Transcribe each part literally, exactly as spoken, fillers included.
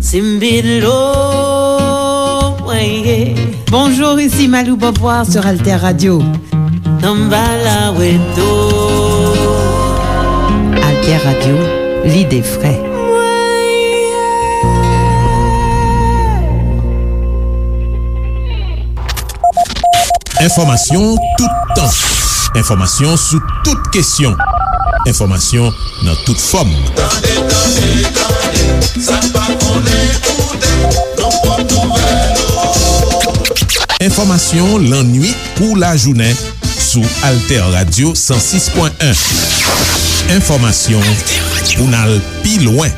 Simbilo, mwen ye. Bonjour, ici Malou Beauvoir sur Alter Radio. Samba la weto. Alter Radio, lide fre. Enfòmasyon toutan. Enfòmasyon sou tout kesyon. Enfòmasyon nan tout fòm. Tande, tande, tande, sa n pa konnen koute, nan pwòp nouvèl ou. Enfòmasyon lannuit kou lajounen sou Alter Radio san sis pwen en. Enfòmasyon pou n al pi lwen.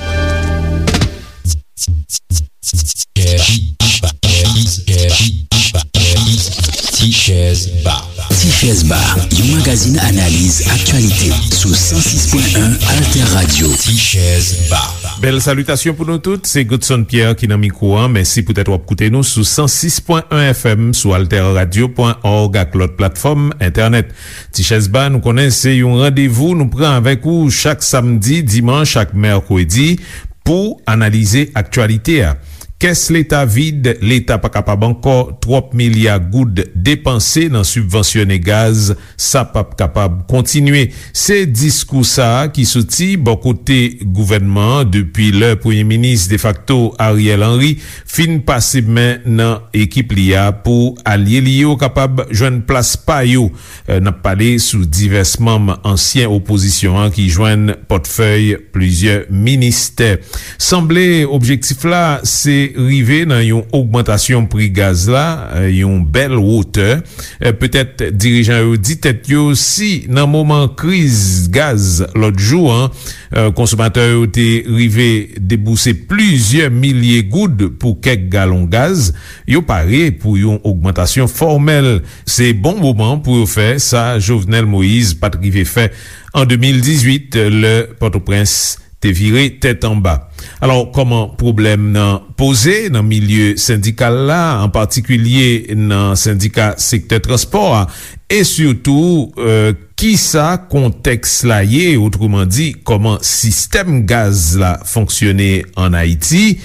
Ti Chèz Ba. Ti Chèz Ba, yon magazin analiz aktyalite sou san sis pwen en Alter Radio. Ti Chèz Ba. Bèl salitasyon pou nou tout, se Godson Pierre ki nan mikwo a. Mèsi poutèt w ap koute nou sou san sis pwen en F M, sou alter radio pwen org ak lòt platfòm entènèt. Ti Chèz Ba, nou konnen se yon randevou nou pran avèk ou chak samdi, dimanch ak mèkredi pou analize aktyalite a. Kès leta vid, leta pa kapab ankò, twòp milya goud depanse nan sibvansyone gaz, sa p ap kapab kontinye. Se diskou sa a ki soti bò kote gouvènman an depi lè premye minis defakto Ariel Henry fin pase men nan ekip li a pou alye li yo kapab jwenn plas pa yo. Eh, n ap pale sou divès manm ansyen opozisyon an ki jwenn pòtfèy plizyè ministè. Sanble objektif la se rive nan yon ogmantasyon pri gaz la, eh, yon bèl wotè. Eh, petèt dirijan yo di tèt yo si nan moman kriz gaz lòt jou an, eh, konsomatè yo te rive debouse plizyè milye goud pou kèk galon gaz, yo pare pou yon ogmantasyon fòmèl. Se bon moman pou yo fè sa Jovenel Moïse pa t rive fè an de mil dizuit, lè Pòtoprens te vire tèt anba. Alò, kòman pwoblèm nan poze nan milye sendikal la, an patikilye nan sendika sektè transpò a, e sitou, eh, kisa kontèks la ye, otreman di, kòman sistèm gaz la fonksyone ann Ayiti?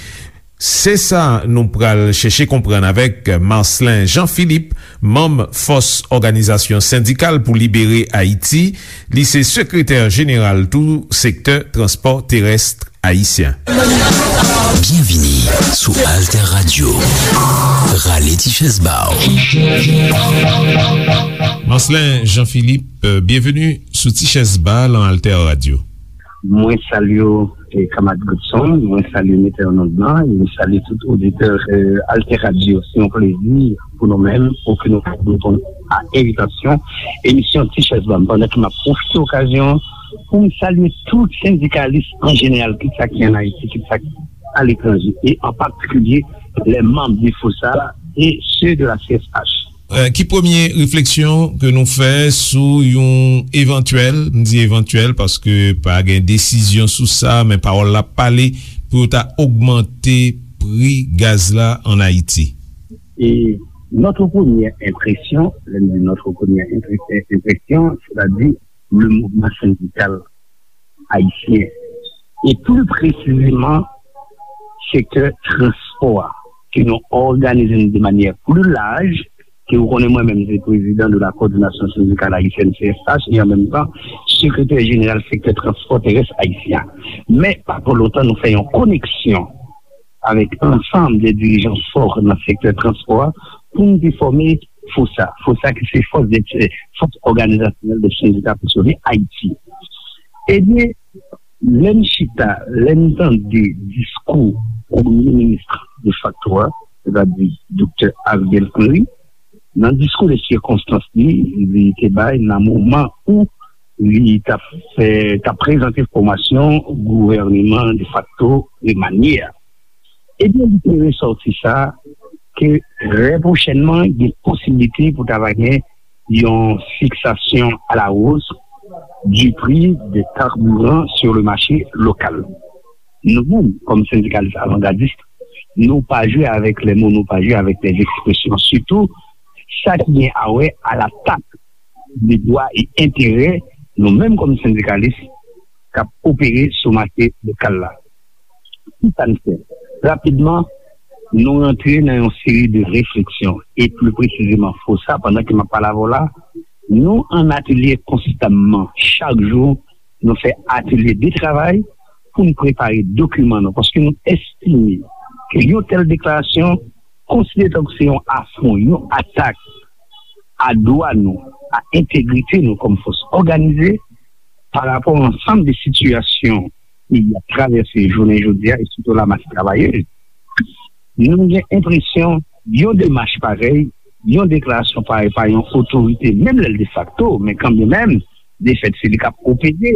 Se sa nou pral chèche konprann avèk Marcelin Jean Philippe, manm Fòs Òganizasyon Sendikal pou Libere Ayiti. Li se sekretè jeneral tou sektè transpò terès ayisyen. Byenvini sou Alter Radio. Rale ti chèz ba w. Marcelin Jean Philippe, byenveni sou Ti Chèz Ba nan Alter Radio. Mwen salye w, e, kanmarad Godson, mwen salye metè an onn lan, e mwen salye tout oditè, e, Alter Radio. Se yon plezi pou nou menm, pou ke nou ka reponn a envitasyon emisyon Ti Chèz Ba m. Pandan ke m ap pwofite okazyon pou m salye tout sendikalis an jeneral, kit sa ki ann Ayiti, kit sa ki aletranje, e an patikilye les membres de FOSA et ceux de la C S H. Eh, ki premye refleksyon ke nou fè sou yon evantyèl, m di evantyèl paske pa gen desizyon sou sa, men pawòl la pale pou yo ta ogmante pri gaz la ann Ayiti? Et notre première impression, lè m di notre première impression, c'est-à-dire le mouvement syndical ayisyen, e pli presizeman sektè transpò a, ke nou òganize nou de manyè pli laj, ke ou konnen mwen menm se prezidan de la Coordination Syndicale Haïtienne, C S H, e an menm tan sekretè jeneral sektè transpò terès ayisyen. Men pa twò lontan nou fè yon koneksyon avèk ansanm de dirijan fò nan sektè transpò a pou n te fòme FOSA. FOSA ki se Force de, Force Organisationnelle des Syndicats Fonctionnaires Haïti. Ebyen, lè n chita, lè n tande diskou premye minis defakto a, sètadi doktè Ariel Henry, nan diskou de sikonstans li, li te bay nan moman ou li t ap fè, t ap prezante fòmasyon gouvèneman defakto remanye a. Ebyen, li te resòti sa ke trè pwochènman, gen posiblite pou ta va gen yon fiksasyon a la hausse du prix des carburants sur le marché local. Nou menm, kòm sendikalis avangadis, nou pa jwe avèk les mots, nou pa jwe avèk les expressions. Sitou, sa ki gen a wè a latak de dwa e enterè nou menm kòm sendikalis k ap opere sou mache lokal la. Ki sa n fè? Rapidman, nou rantre nan yon seri de refleksyon, e pli presizeman, FOSA, pandan ke m ap pale avè w la, nou an atelye konstamman, chak jou, nou fè atelye de travay pou n prepare dokiman nou, paske nou estime ke yon tèl deklarasyon konsidere tankou se yon afwon, yon atak a dwa nou, a entegrite nou kòm fòs òganize, pa rapò a ansanm de sitiyasyon peyi a travèse jounen jodi a, e sitou lamas travayè. Nou gen enpresyon yon demach parèy, yon deklarasyon parèy pa yon otorite, menm lè l defakto, men kanmenm, defèt se li k ap opere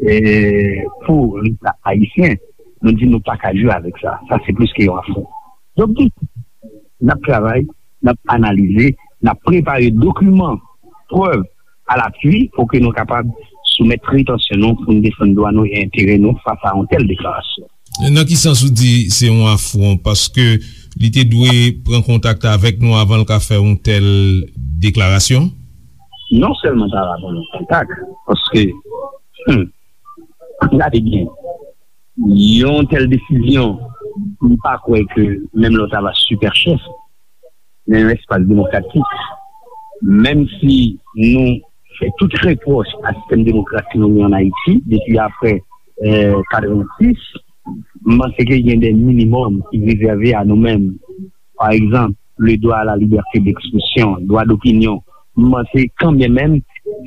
eh, pou Leta ayisyen. Nou di nou pa ka jwe avèk sa. Sa se plis ke yon afwon. Donk, n ap travay, n ap analize, n ap prepare dokiman, prèv alapui pou ke nou kapab soumèt pretansyon nou pou n defann dwa nou e enterè nou fas a yon tèl deklarasyon. Nan ki sans ou di se yon afwon? Paske li te dwe pran kontak avèk nou avan l ka fè yon tèl deklarasyon? Non sèlman ta va pran yon kontak, paske, hmm, gade byen, yon tèl desizyon, m pa kwè ke menm lè w ta va sipè chèf nan yon espas demokratik, menm si nou fè tout repwòch a sistèm demokratik nou gen ann Ayiti depi apre eh, katrevensis, m panse ke gen de minimòm ki rezève a nou menm. Pa egzanp, le droit à la liberté d'expression, dwa dopinyon. M panse kanmenm,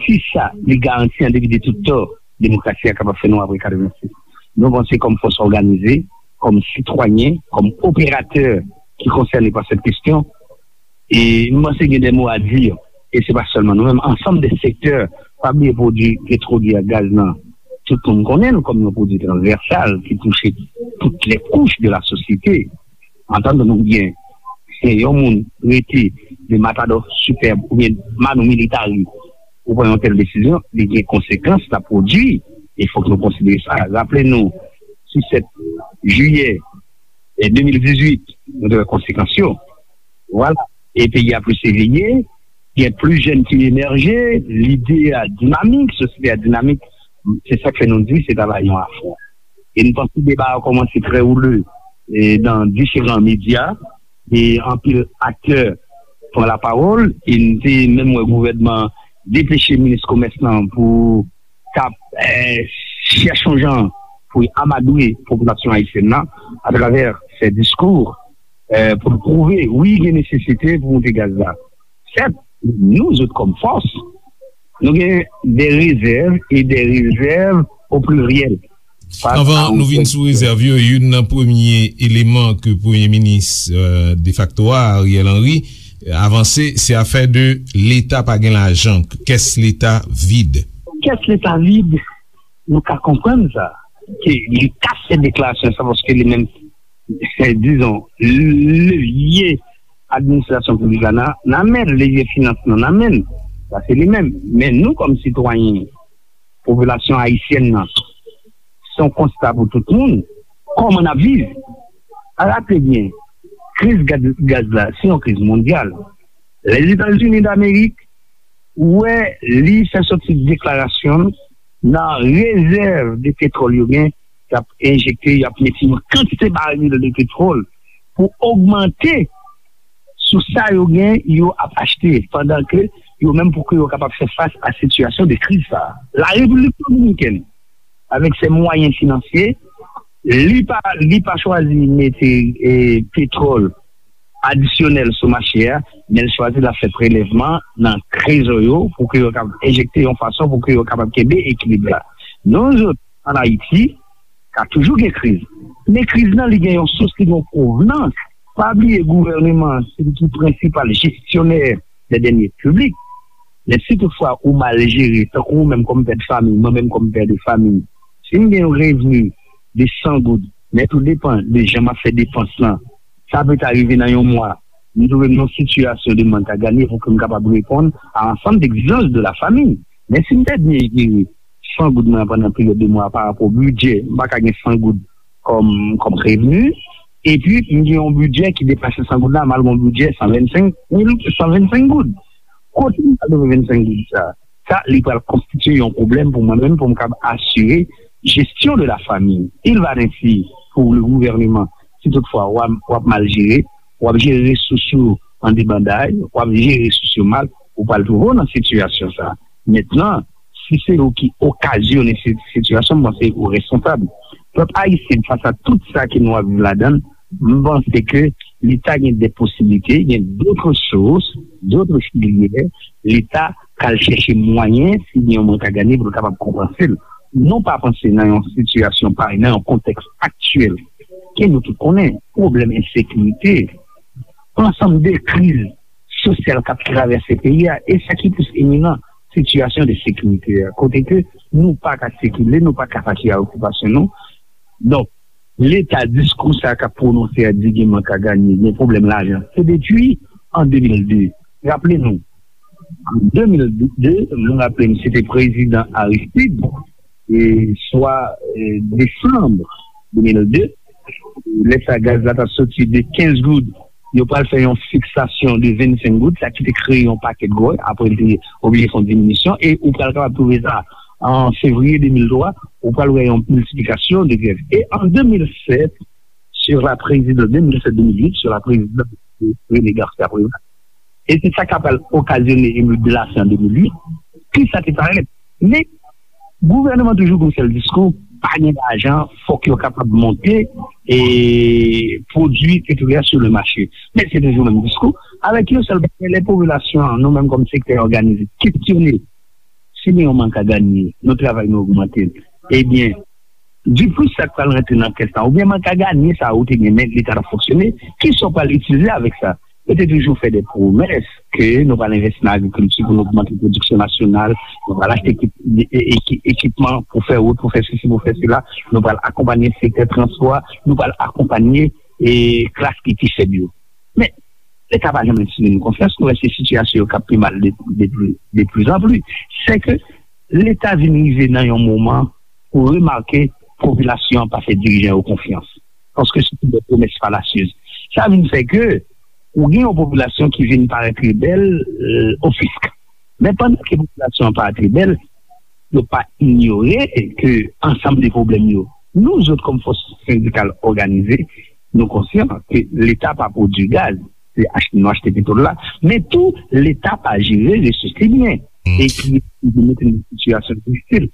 si sa li garanti an depi de tout tan, demokrasi a kapab fè nou apre katrevensis. Nou panse kòm fòs òganize, kòm sitwayen, kòm operatè ki konsène pa sèt kesyon, e m panse gen de mo a di, e se pa sèlman nou menm, ansanm de sektè, pa bliye pwodui petwolye ak gaz lan, tout moun konnen l kòm yon pwodui transvèsal ki touche tout lè kouch de la sosyete. Antann nou byen, se yon moun rete de Matadò Sipèb oubyen Manou Militari, ou pran yon tèl desizyon, li gen konsekans l ap pwodui. E fòk nou konsidere sa. Raple nou, sou sèt jiyè eh, de mil dizuit, nou te wè konsekans yo. Vwala. E peyi a plis eveye, gen plis jèn ki emèje, lide a dinamik, sosyete a dinamik, se sa k fè nou di se ta va yon afwon. E nou panse deba a kòmanse trè woule e nan diferan medya, e anpil aktè pran lapawòl, e nou te menm wè gouvènman depeche minis komès lan pou k ap eh, chèche yon jan pou l amadwe popilasyon ayisyèn nan atravè fè diskou eh, pou l pwouve, wi, gen nesesite pou moute gaz la. Sèt, nou zòt kòm fòs, nou gen de rezèv e de rezèv o pliryèl. Anvan nou vin sou rezèv yo, youn nan premye eleman ke premye minis eh, defakto a, Ariel Henry, avanse, se afè de Leta pa gen lajan, kès Leta vid. Kès Leta vid, nou ka konprann sa, ke li ka fè deklarasyon sa paske li menm, dizon, levye administrasyon piblik la nan, nan men l, levye finans lan nan men l. Sa se li menm. Men nou kòm sitwayen, popilasyon ayisyèn nan, se yon konsta pou tout moun. Kòman n ap viv? Raple byen, kriz gaz, gaz la, se yon kriz mondyal. Lèzetazini Damerik, ou wè, li fè sòti deklarasyon nan rezèv de petwòl yo gen, y ap enjekte, y ap mete yon kantite baril de petwòl pou ogmante sou sa yo gen, yo ap achte, pandan ke yo menm pou ke yo kapab fè fas a sitiyasyon de kriz sa a. La Repiblik Dominikèn, avèk se mwayen finansye, li pa, li pa chwazi mete eh, petwòl adisyonèl sou mache a, men l chwazi l ap fè prelèvman nan trezò yo pou ke yo kapab enjekte yon fason pou ke yo kapab kenbe ekilib la. Nou zòt, ann Ayiti, ka toujou gen kriz. Men kriz lan, li gen yon sous, li gen yon pwovenans. Pa bliye, gouvèneman an, se li ki prensipal jesyonè dè dènye piblik. Men si toutfwa ou mal jere, tankou ou menm kòm pè de fanmi, mwen menm kòm pè de fanmi, si m gen yon revni de san goud, men tou depan de jan m ap fè depans lan, sa peta rive nan yon mwa, m twouve m nan yon sitiyasyon de mank a ganye pou ke m kapab reponn a ansanm de egzijans de la fanmi. Men si m pèdi san goud mwen pandan peryòd de mwa pa rapò bidjè, m pa ka gen san goud kòm, kòm revni, epi m gen yon bidjè ki depase san goud la, m al gen yon bidjè san vennsenk mil, san vennsenk goud. Kote m pral twouve vennsenk goud sa? Sa, li pral konstitye yon pwoblèm pou mwen menm, pou m kapab asire jesyon de la fanmi. Il va ainsi pour le gouvernement. Si toutfwa w ap, w ap mal jere, w ap jere resous yo an debanday, w ap jere resous yo mal, ou pral twouve w nan sitiyasyon sa a. Mentnan, si se ou ki okazyone si-, sitiyasyon, m panse ou responsab. Pèp ayisyen, fas a tout sa ke nou ap viv ladan l, m panse ke Leta gen de posiblite, gen d'autres sources, d'autres filières, Leta ka al chèche mwayen, si gen yon mwen ka gade, pou l kapab konpanse l. Nou pa panse nan yon sitiyasyon parèy, nan yon kontèks aktyèl, ke nou tout konnen, pwoblèm ensekirite, ansanm de kriz sosyal k ap travèse peyi a, e sa ki plis eminan, sitiyasyon de sekirite a, kote ke nou pa ka sikile, nou pa ka patisipe a okipasyon nou. Donk, Leta, diskou sa k ap pwononse a di gen mank a ganye, gen pwoblèm lajan. Se depi an de mil de. Raple nou, an de mil de, mwen raple m, se te prezidan Aristide, e swa, e, desanm de mil de, lè sa gaz la t ap soti de kenz goud, yo pral fè yon fiksasyon de vennsenk goud, sa ki te kreye yon pakèt gwòy, apre li te oblije fè yon diminisyon, e ou pral kapab twouve sa an fevriye de mil twa, ou pral wè yon miltiplikasyon de grèv. E an de mil sèt, sou la prezidans, de mil sèt de mil uit, sou la prezidans de René Garcia Préval, e se sa k ap okazyone emeut de lari an de mil uit, ki sa te parèt. Men, gouvènman toujou gen yon sèl diskou, pa gen lajan, fòk yo kapab monte e pwodui petwolè sou le mache. Men se toujou menm diskou, avèk yon sèl bagay, lè popilasyon an, nou menm kòm sektè òganize, kesyone si gen yon mank a ganye, nou travay nou ogmante l. Ebyen, diplis sa k pral rantre nan kès la, oubyen mank a ganye sa ou te gen, men Leta t ap fonksyone, kisa w pral itilize avèk sa? Yo te toujou fè de pwomès ke nou pral envesti nan agrikilti pou nou ogmante pwodiksyon nasyonal, nou pral achte ekip-, e-, e-, eki-, ekipman pou fè wout, pou fè sesi, pou fè sela, nou pral akonpanye sektè transpò a, nou pral akonpanye, e, klas ki pi fèb yo. Men, Leta pa janm enspire nou konfyans, nou wè se sitiyasyon yo k ap pi mal de, de, de plizanpli. Se ke Leta vin rive nan yon moman pou remake popilasyon an pa fè dirijan yo konfyans. Paske se te de pwomès falasyez. Sa vin fè ke ou gen yon popilasyon ki vin parèt rebèl, e, o fisk. Men pandan ke popilasyon an parèt rebèl, yo pa inyore ke ansanm de pwoblèm yo, nou zòt kòm fòs sendikal òganize, nou konsyan ke Leta pa pwodui gaz, se achte, nou achte petwòl la, men tou Leta pa jere resous li byen, e ki mete nou nan sitiyasyon difisil.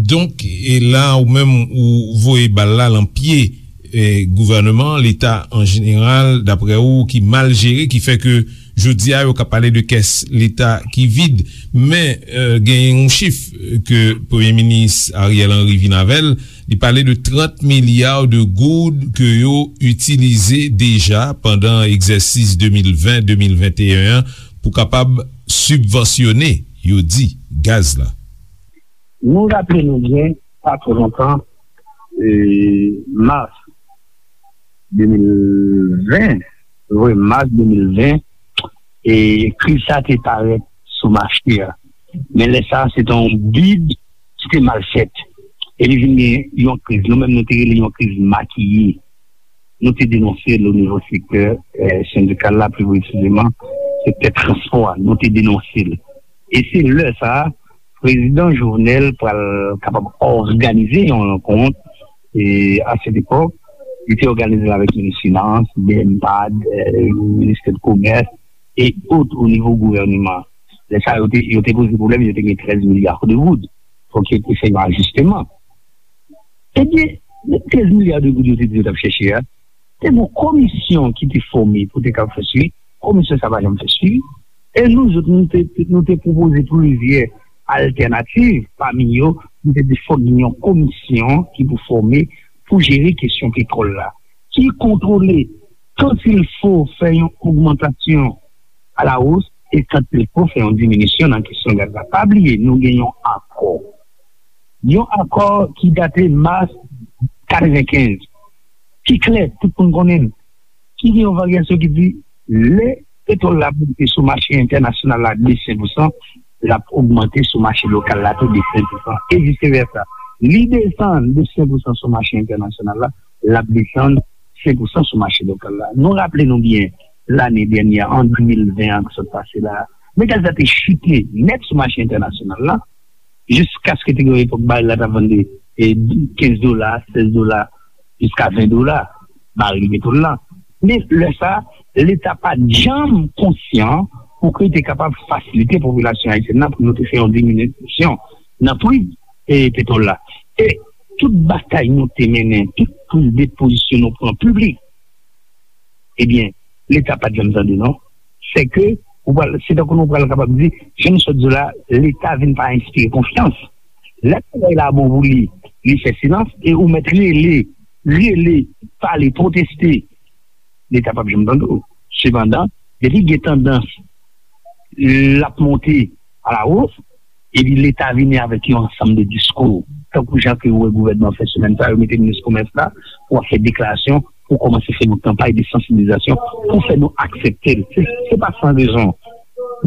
Donk, e la ou menm ou voye bal la lan pye, e, gouvènman, Leta an jeneral, daprè ou, ki mal jere, ki fè ke jodi a yo ka pale de kès Leta ki vid. Men, e, gen yon chif ke Premye Minis Ariel Henry vin avè l, li pale de trant milya de goud ke yo itilize deja pandan egzèsis de mil ven, de mil venteyen an pou kapab sibvansyone, yo di, gaz la. Nou raple nou byen, pa twò lontan, e, mas de mil ven, wi, mas de mil ven, e, kriz sa te parèt sou mache a. Men lè sa a, se te yon bid ki te mal fèt. E li vin gen yon kriz. Nou menm, nou te rele yon kriz makiye. Nou te denonse l o nivo sektè, e, sendikal la, pi presizeman, sektè transpò a. Nou te denonse l. E se lè sa a, Prezidan Jovenel pral kapab òganize yon rankont, e, a sèt epòk, li te òganize l avèk minis finans, B M pad, e, ministè de komès, e ot o nivo gouvènman. Lè sa a, yo te, yo te poze pwoblèm, yo te gen trèz milya de goud. Fòk yo te fè yon ajisteman. Ebyen, trèz milya de goud yo te di yo t ap chèche a, te gen yon komisyon ki te fòme pou te kab fè swivi. Komisyon sa pa janm fè swivi. E nou zòt, nou te, nou te pwopoze plizyè altènativ, pami yo, nou te di fòk gen yon komisyon ki pou fòme pou jere kesyon petwòl la, ki kontwole, quand il faut, fè yon ogmantasyon a la hausse e quand il faut fè yon diminisyon nan kesyon gaz la. Pa bliye, nou gen yon akò. Yon akò ki date mas katrevenkenz. Ki klè, tout moun konnen l. Ki gen yon varyasyon ki di, lè petwòl la monte sou mache entènasyonal la de senk pousan, l ap ogmante sou mache lokal la tou de senk pousan, e vice versa. Li desann de senk pousan sou mache entènasyonal la, l ap desann senk pousan sou mache lokal la. Nou raple nou byen, lane dènyè, an de mil ven an ki sot pase la, men gaz la te chite nèt sou mache entènasyonal la, jiskaske te gen yon epòk barèl la t ap vann de, e, kenz dola, sèz dola, jiska ven dola. baril petwòl la. Men lè sa, Leta pa t janm konsyan pou ke l te kapab fasilite popilasyon ayisyèn nan pou nou te fè yon diminisyon nan pri, e, petwòl la. E tout batay nou te mennen, tout priz de pozisyon nou pran piblik, ebyen, Leta pa t janm tande non. Se ke, ou pral, se tankou nou pral kapab di, jan nou sot di la, Leta vin pa enspire konfyans. Lè bagay la bon pou li, li fè silans, e ou mèt rele, rele, pale, pwoteste, Leta p ap janm tande w. Sepandan, depi gen tandans l ap monte alawos, epi Leta vini avèk yon ansanm de diskou, tankou jan ke ou wè gouvènman fè semèn sa, yo mete minis komès la pou ap fè deklarasyon, pou kòmanse fè yon kanpay de sansibilizasyon, pou fè nou aksepte l. Se, se pa san rezon.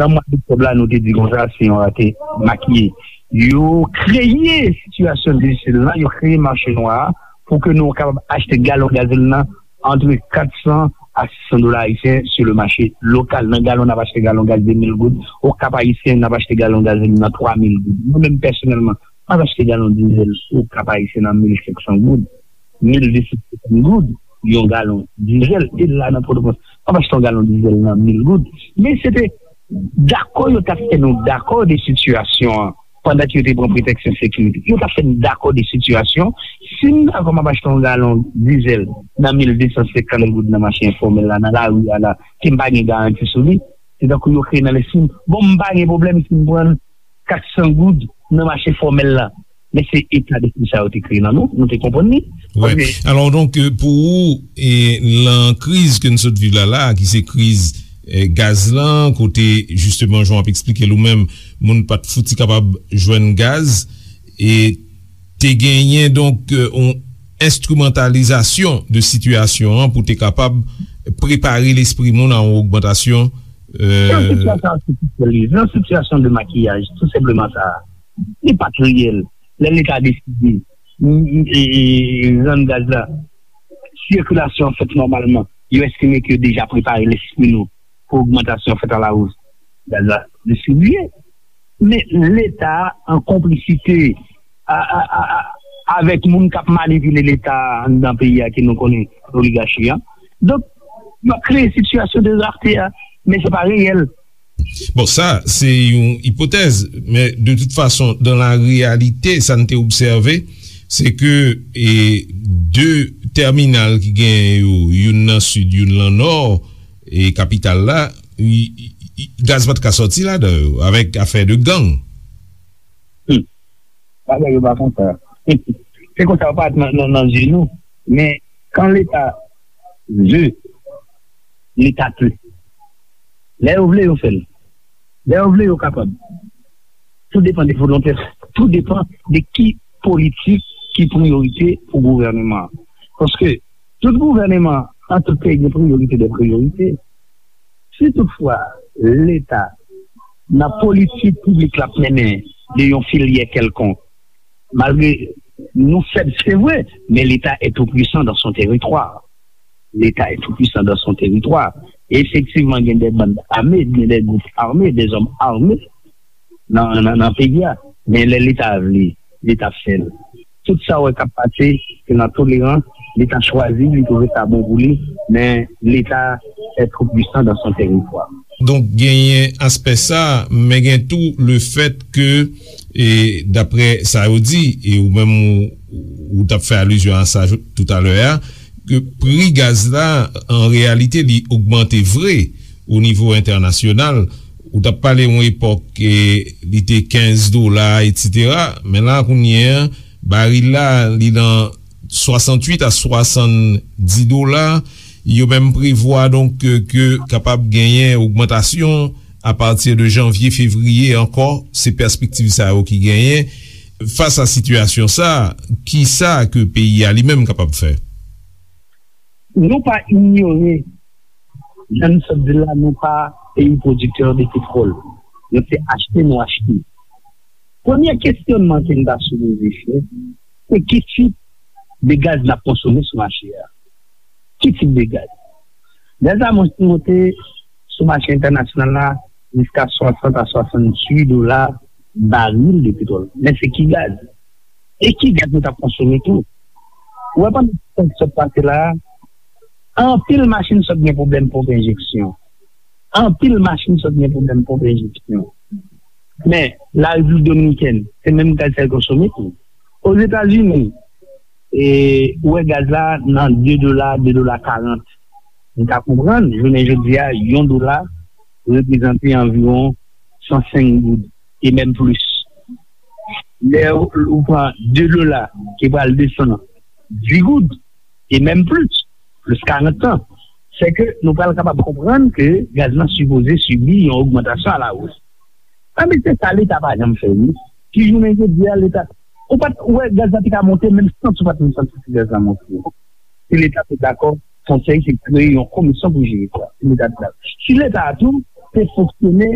Nan mwa doktòb la, nou te di konsa, se yon rate makiye. Yo kreye sitiyasyon difisil lan, yo kreye mache nwa a, pou ke nou kapab achte galon gazolin nan antre kat san a sis san dola ayisyen sou le mache lokal. Nan galon, n ap achte galon gaz de mil goud. Okap ayisyen, n ap achte galon gazolin nan twa mil goud. Mwen menm pèsonèlman, m ap achte galon dizèl Okap ayisyen nan mil senk san goud, mil de san senkant goud yon galon dizèl. E la nan Pòtoprens, m ap achte yon galon dizèl nan mil goud. Men se te dakò yo t ap fè nou dakò de sitiyasyon an, pandan ke yo te pran pretèks sekirite. Yo t ap fè n dakò de sitiyasyon. Si m dakò m ap achte yon galon dizèl nan mil de san senkant goud nan mache enfòmèl la, nan lari a la, ke m pa gen garanti sou li, se tankou yo kreye nan lespri m, bon, m pa gen pwoblèm si m pran l kat san goud nan mache fòmèl la. Men se eta despri sa yo te kreye nan nou, nou te konprann li. Wi. Paske Alò, donk, euh, pou ou, e, nan kriz ke n sot viv la, la, ki se kriz, eh, gaz lan, kote, jisteman, jan w ap eksplike l ou menm, moun pa t fouti kapab jwenn gaz, e te genyen, donk, euh, yon enstrimantalizasyon de sitiyasyon an pou te kapab prepare lespri moun a yon ogmantasyon, Se yon euh, sitiyasyon atifisyèl li, se yon sitiyasyon de makiyaj, tou senpleman sa. Li pa t reyèl. Lè Leta deside, m, m, e, e, rann gaz la, sikilasyon an fèt nòmalman. Yo estime ke yo deja prepare lespri nou pou ogmantasyon fèt alawos. Gaz la distribiye. Men Leta an konplisite a, a, a, a, avèk moun k ap manipile Leta anndan peyi a ke nou konnen, oligachi an. Donk, yo ap kreye sitiyasyon de rarte a, men se pa reyèl. Bon, sa, se yon ipotèz, men de tout fason, dans la réalité, sa n te obsève, se ke, e, de tèminal ki genyen yo, youn nan sid, youn nan nò, e kapital la, i, i, i, gaz pa t ka sòti ladan yo, avèk afè de gang. Hmm. Bagay yo pa konsa. Se konsa yo parèt nan, nan, nan zye nou. Men, kan Leta ve, Leta pe. Lè yo vle, yo fè l. Lè yo vle, yo kapab. Tou depann de volonte, tou depann de ki politik ki priyorite pou gouvèneman an. Paske tout gouvèneman an, tout peyi gen priyorite de priyorite. Si toutfwa Leta, nan politik piblik l ap mennen de yon filyè kèlkonk, malgre nou fèb, se vre, men Leta est tout puissant dans son territoire. Leta est tout puissant dans son territoire. E efektivman, gen de bann ame, gen de gwoup ame, de zòm ame nan, nan, nan peyi a. Men lè Leta vle, Leta fè l. Tout sa w wè k ap pase, se nan tolerans, Leta chwazi, li twouve sa bon pou li, men Leta est tout puissant dans son territoire. Donk, genyen aspè sa, men gen tou le fèt ke, e, daprè sa yo di, e ou menm ou, ou t ap fè alizyon a sa jou-, toutalè a, ke pri gaz la, an reyalite, li ogmante vre o nivo entènasyonal. Ou t ap pale yon epòk, e, li te kenz dola, etsetera. Men la, kounye a, baril la, li nan swasanntuit a swasanndis dola. Yo menm prevwa, donk, ke, ke kapab genyen ogmantasyon apati de janvye, fevriye ankò. Se pèspektiv sa yo ki genyen. Fas a sitiyasyon sa, kisa ke peyi a li menm kapab fè? Nou pa inyore, jan n sot di l la, nou pa peyi pwodiktè de petwòl. Nou se achte, nou achte. Premye kesyonman ke n ta sipoze fè, se ki tip de gaz n ap konsome sou mache a? Ki tip de gaz? Gaz la mon-, monte sou mache entènasyonal la jiska swasant a swasanntuit dola baril de petwòl. Men se ki gaz? E ki gaz nou t ap konsome tou? Ou wè, pandan sa k sot pase la a, Anpil machin sot gen pwoblèm ponp enjeksyon. Anpil machin sot gen pwoblèm ponp enjeksyon. Men, Larepiblik Dominikèn, se menm gaz sa yo konsome tou. Ozetazini, e, ou wè gaz la nan de dola, de dola karant. Nou ka konprann, jounen jodi a, yon dola reprezante anviwon san senk goud, e menm plis. Lè ou, ou pran de dola ki pral desann dis goud, e menm plis, plis karant tan. Se ke nou pral kapab konprann ke gaz lan sipoze sibi yon ogmantasyon a la wos. Anben, se sa Leta pa janm fè, wi. Ki jounen jodi a, Leta, ou pa t wè gaz la te ka monte, menm sant ou pa t menm santi si gaz la monte. Si Leta te dakò, konsèy se kreye yon komisyon pou jere sa. Si Leta te dakò. Si Leta a tou te fonksyone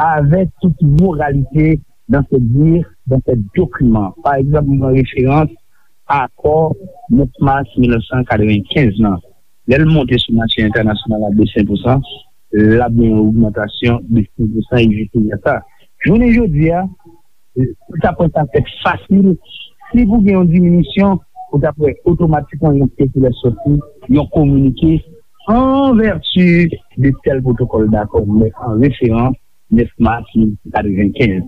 avèk tout moralite dans ses dires, dans ses documents. Pa egzanp, mwen pran referans akò nèf mas mil nèf san katrevenkenz lan. Lè l monte sou mache entènasyonal la de senk pousan, l ap gen yon ogmantasyon de senk pousan e vis versa. Jounen jodi a, ou ta pran sa fèt fasil. Si pou gen yon diminisyon, ou ta pran otomatikman yon sikilè sòti, yon kominike an vèti de tèl pwotokòl dakò, men an referans nèf mas mil nèf san katrevenkenz.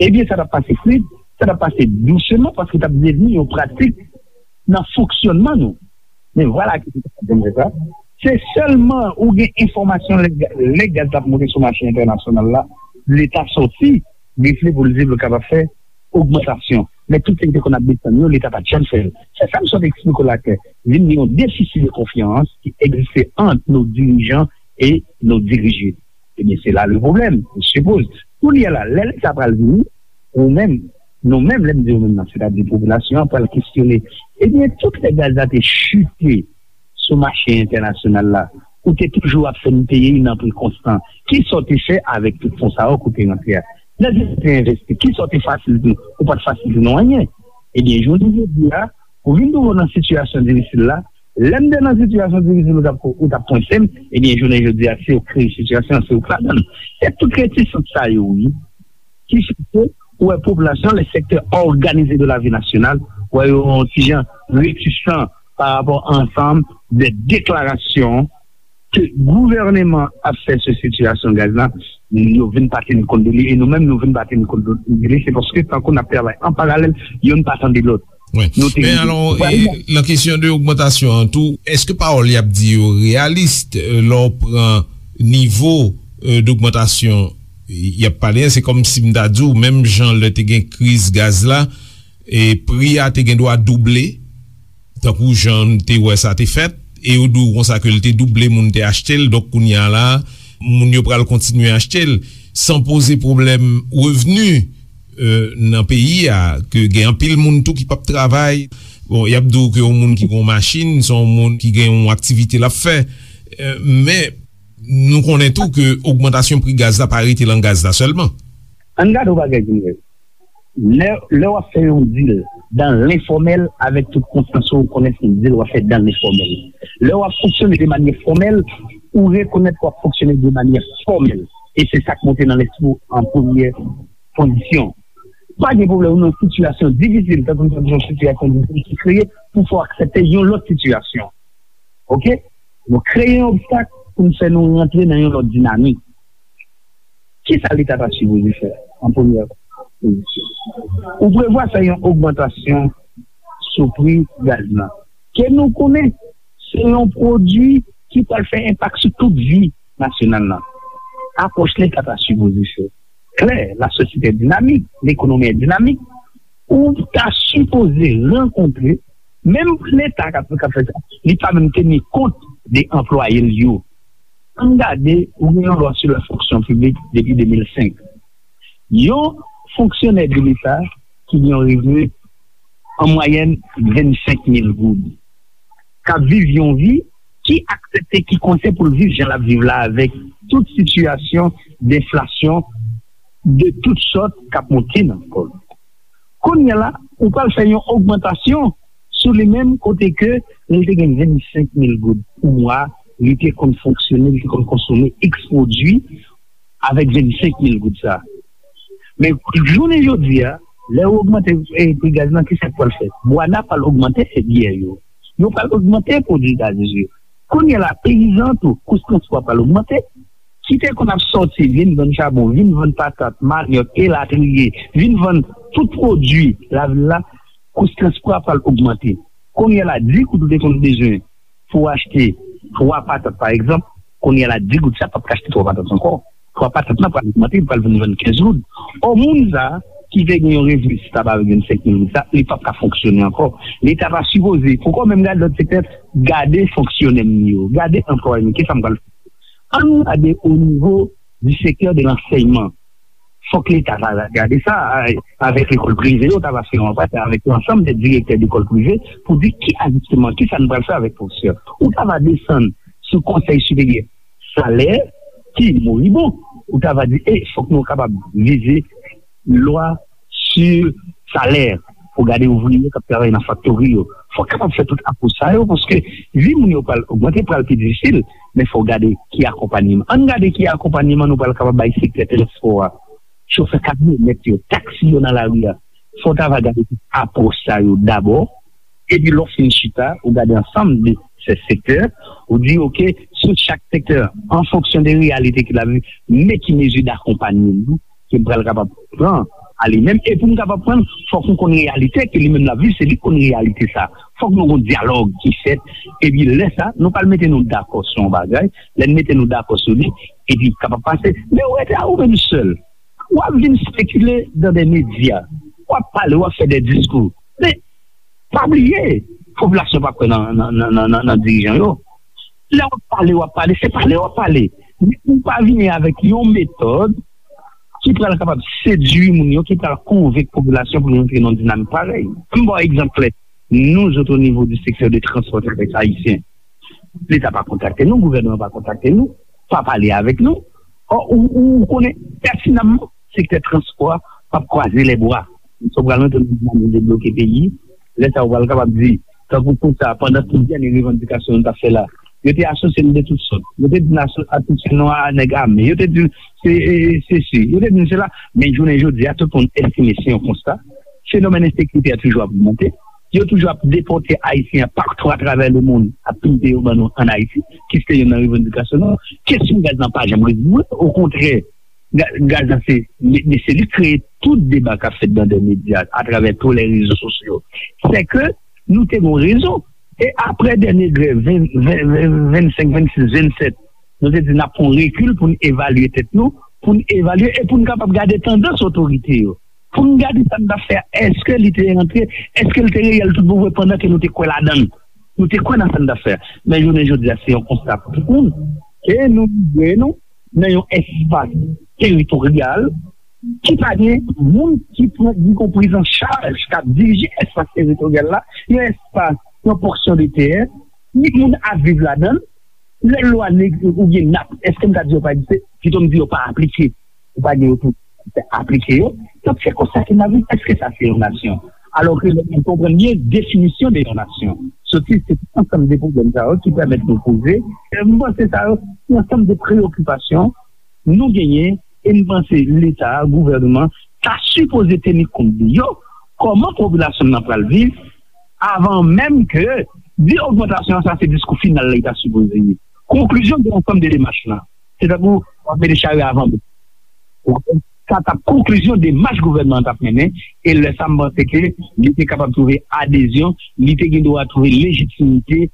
Ebyen, sa t ap pase fluid, sa t ap pase douseman, paske t ap devni yon pratik nan fonksyònman nou. Men vwala ki se pa janm fè sa. Se sèlman ou gen enfòmasyon lè, lè gaz la ap monte sou mache entènasyonal la, Leta sòti, refle pou l di l kapab fè ogmantasyon. Men tout sa ki te konn ap desann yo, Leta pa t janm fè l. Se sa m sot eksplike w la klè. Vin gen yon defisi de konfyans ki egziste ant nos dirigeants et nos dirigés. Ebyen, se la le problème, je suppose. Kounye a la, lè Leta pral vini, ou menm, nou menm, lè m di ou menm nan, sètadi popilasyon an pral kesyone. Ebyen, tout lè gaz la te chite sou mache entènasyonal la, ou te toujou ap fè n peye nan pri konstan. Kisa w te fè avèk tout fon sa yo ke w te rantre a? Lè w te envesti, kisa w te fasilite? Ou pa t fasilite nou anyen. Ebyen, jounen jodi a, ou vin twouve w nan sitiyasyon difisil la. Lè m te nan sitiyasyon difisil, ou t ap, ou t ap pwense m, ebyen, jounen jodi a, se ou k kreye sitiyasyon an, se ou k ladan l. Se tout retisans sa yo, wi, ki fè ke ou wè popilasyon, le secteur organisé de la vie nationale, wè yo yon ti jan retisan pa rapò a ansanm de deklarasyon ke gouvèneman ap fè sou sitiyasyon gaz la, yo vin pa teni kont de li, e nou menm nou vin pa teni kont de li, se paske tankou n ap travay an paralèl, youn pa tande lòt. Wi. Nou te Men alò, e, nan kesyon de ogmantasyon an tou, èske pawòl y ap di yo reyalis, e, lè w pran nivo, e, dogmantasyon y ap pale a, se kòm si m ta di w, menm jan lè te gen kriz gaz la, e pri a te gen dwa double, tankou jan n te wè sa te fèt, e yo di w konsa ke l te double, moun te achte l, donk kounye a la, moun yo pral kontinye achte l, san poze pwoblèm revni, e, nan peyi a, ke gen anpil moun tou ki p ap travay. Bon, y ap di w ke yon moun ki gen yon machin, se yon moun ki gen yon aktivite l ap fè. E, men, nou konnen tou ke ogmantasyon pri gaz la pa rete nan gaz la sèlman. Ann gade yon bagay ki mwen. Lè, lè w ap fè yon deal dans l'informel, avèk tout konsyans ou, ou konnen se yon deal w ap fè dans l'informel. Lè w ap fonksyone de manyè fòmèl, ou rekonèt w ap fonksyone de manyè fòmèl. E se sa k monte nan lespri w an premyè kondisyon. Pa gen pwoblèm, ou nan sitiyasyon difisil, tankou nou di yon sitiyasyon difisil ki kreye pou fè w aksepte yon lòt sitiyasyon. Oke? Nou kreye yon obstak pou n fè nou rantre nan yon lòt dinamik. Kisa Leta ta sipoze fè an premyè pozisyon? Ou prevwa fè yon ogmantasyon sou pri gaz la. Ke nou konnen, se yon pwodui ki pral fè enpak sou tout vi nasyonal la. Apwòch Leta ta sipoze fè klè, la société est dynamique, l'économie est dynamique, ou ta sipoze rankontre, menm Leta k ap, k ap fè sa, li pa menm teni kont de anplwaye l yo. Ann gade, ou gen yon lwa sou la fonksyon piblik depi de mil senk. Yon fonksyonè de Leta ki gen yon revni an mwayèn vennsenk mil goud, k ap viv yon vi ki aksepte, ki konsyan pou l viv jan l ap viv la, avèk tout sitiyasyon denflasyon de tout sòt k ap monte nan kò l. Kounye a la, ou pral fè yon ogmantasyon sou li menm, kote ke lè l te gen vennsenk mil goud pou mwa, li te konn fonksyone, li te konn konsome X pwodui avèk vennsenk mil goud sa. Men jounen jodi a, lè ou ogmante, e, pri gaz lan, kisa k pral fèt? Bwana pral ogmante biyè yo. Yo pral ogmante pwodui gaz yo. Kounye a la, peyizan tou, kous transpò a pral ogmante. Ki te konn ap sòti, vin vann chabon, vin vann patat, manyòk, elatriye, vin vann tout pwodui lavil la, kous transpò a pral ogmante. Kounye a la, di goud ou te konn bezwen pou w achte twa patat, pa egzanp, kounye a la, di goud sa p ap ka achte twa patat ankò. Twa patat nan pral ogmante, li pral vin vann kenz goud. Ò, moun sa ki te gen yon revni stab avèk vennsenk mil goud sa, li p ap ka fonksyone ankò. Leta ta sipoze, poko menm gade lòt sektè, gade fonksyonè m yo, gade anplwaye m yo, kisa m pral fè? Ann gade o nivo di sektè de lansèyman. Fòk Leta ta gade sa, a, avèk lekòl prive yo, ta va fè yon anpat avèk yon ansanm de direktè lekòl prive pou di ki ajisteman, kisa n pral fè avèk pwofesè. Ou ta va desann sou Konsèy Siperyè Salè ki moribon. Ou ta va di, e, fòk nou kapab vize lwa sou salè pou gade ouvriye k ap travay nan faktori yo. Fòk kapab fè tout apwòch sa yo, paske vi moun yo pral ogmante, pral pi difisil, men fò gade ki akonpanyman. Ann gade ki akonpanyman nou pral kapab bay sektè transpò a. Chofè kamyonèt yo, taksi yo nan lari a. Fò ta va gade tout apwòch sa yo dabò. Epi lè w fin chita, ou gade ansanm de se sektè, ou di, oke, sou chak sektè, an fonksyon de reyalite ki la vi, men ki mezi dakonpanyman ke m pral kapab pran a li menm. E pou m kapab pran, fòk m konn reyalite ke li menm l ap viv, se li k konn reyalite sa. Fòk nou gon dyalòg ki fèt. Epi lè sa, nou pral mete nou dakò sou yon bagay. Lè n mete nou dakò sou li, epi kapab pase. Men ou rete a ou menm sèl. W ap vin spekile dan de medya. W ap pale, w ap fè de diskou. Men, pa bliye, popilasyon pa kwè nan, nan, nan, nan, nan, nan dirijan yo. Lè w ap pale, w ap pale, se pale w ap pale. Men ou pa vini avèk yon metòd ki pral kapab sedui moun yo, ki pral konvenk popilasyon pou yo antre nan dinamik parèy. M ba w egzanp klè. Nou zòt o nivo di sektè de transpò tères ayisyen, Leta pa kontakte nou, gouvènman pa kontakte nou, pa pale avèk nou. Ò, ou, ou, ou konnen pètinamman sektè transpò a p ap kwaze lè bra. Sa w pral antre nan dinamik debloke peyi, lè sa w pral kapab di, tankou konsa, pandan tout dènye revandikasyon nou t ap fè la, yo te asosye nou de tout sòt. Yo te di n aso-, asosye nou a nèg ame. Yo te di se, e, e, sesi. Yo te di n sela. Men jounen jodi a, tout moun estime se yon konsta. Fenomèn ensekirite a toujou ap ogmante. Yo toujou ap depòte Ayisyen an patou atravè lemonn, ap pimpe yo ban nou ann Ayiti, ki se te youn nan revandikasyon nou. Kesyon gaz lan pa janm rezoud. Okontrè, ga-, gaz lan se, men, men se li k kreye tout deba k ap fèt nan de medya, atravè tou lè rezo sosyo. Se ke nou te gon rezon. E apre dènye grèv, ven, ven, ven, vennsenk, vennsis, vennsèt, nou te di n ap pran rekil pou n evalye tèt nou, pou n evalye e pou n kapab gade tandans otorite yo. Pou n gade sa n t ap fè a, èske li te antre, èske l te reyèl tout bon vre pandan ke nou te kwè ladan l. Nou te kwè nan sa n t ap fè a. Men jounen jodi a, se yon konsta pou tout moun. E nou rive nou nan yon espas teritoryal ki pa gen moun ki pran, ki gon priz an chaj, k ap dirije espas teritoryal la, yon espas, yon pòsyon de tè, ni moun ap viv ladan l. Lè lwa neg-, oubyen nap, èske m ta di yo pa egziste? Pito m di yo pa aplike. Ou pa gen yo pou aplike yo. Donk, se konsa ke n ap viv. Èske sa se yon nasyon? Alò ke lè nou konprann byen definisyon de yon nasyon, soti se tout ansanm de pwoblèm sa yo ki pèmèt nou poze. E m panse sa yo, se yon ansanm de preyokipasyon nou genyen, e m panse Leta, gouvènman, ta sipoze teni kont de yo, kòman popilasyon nan pral viv, avan menm ke di ogmantasyon an, sa se diskou final la li ta sipoze ye. Konklizyon de ansanm de demach lan, se tankou w ap mete chari avan bèt. Ou konprann? Sa t ap konklizyon demach gouvènman an t ap mennen, e lè sa m panse ke li te kapab twouve adezyon, li te gen dwa twouve lejitimite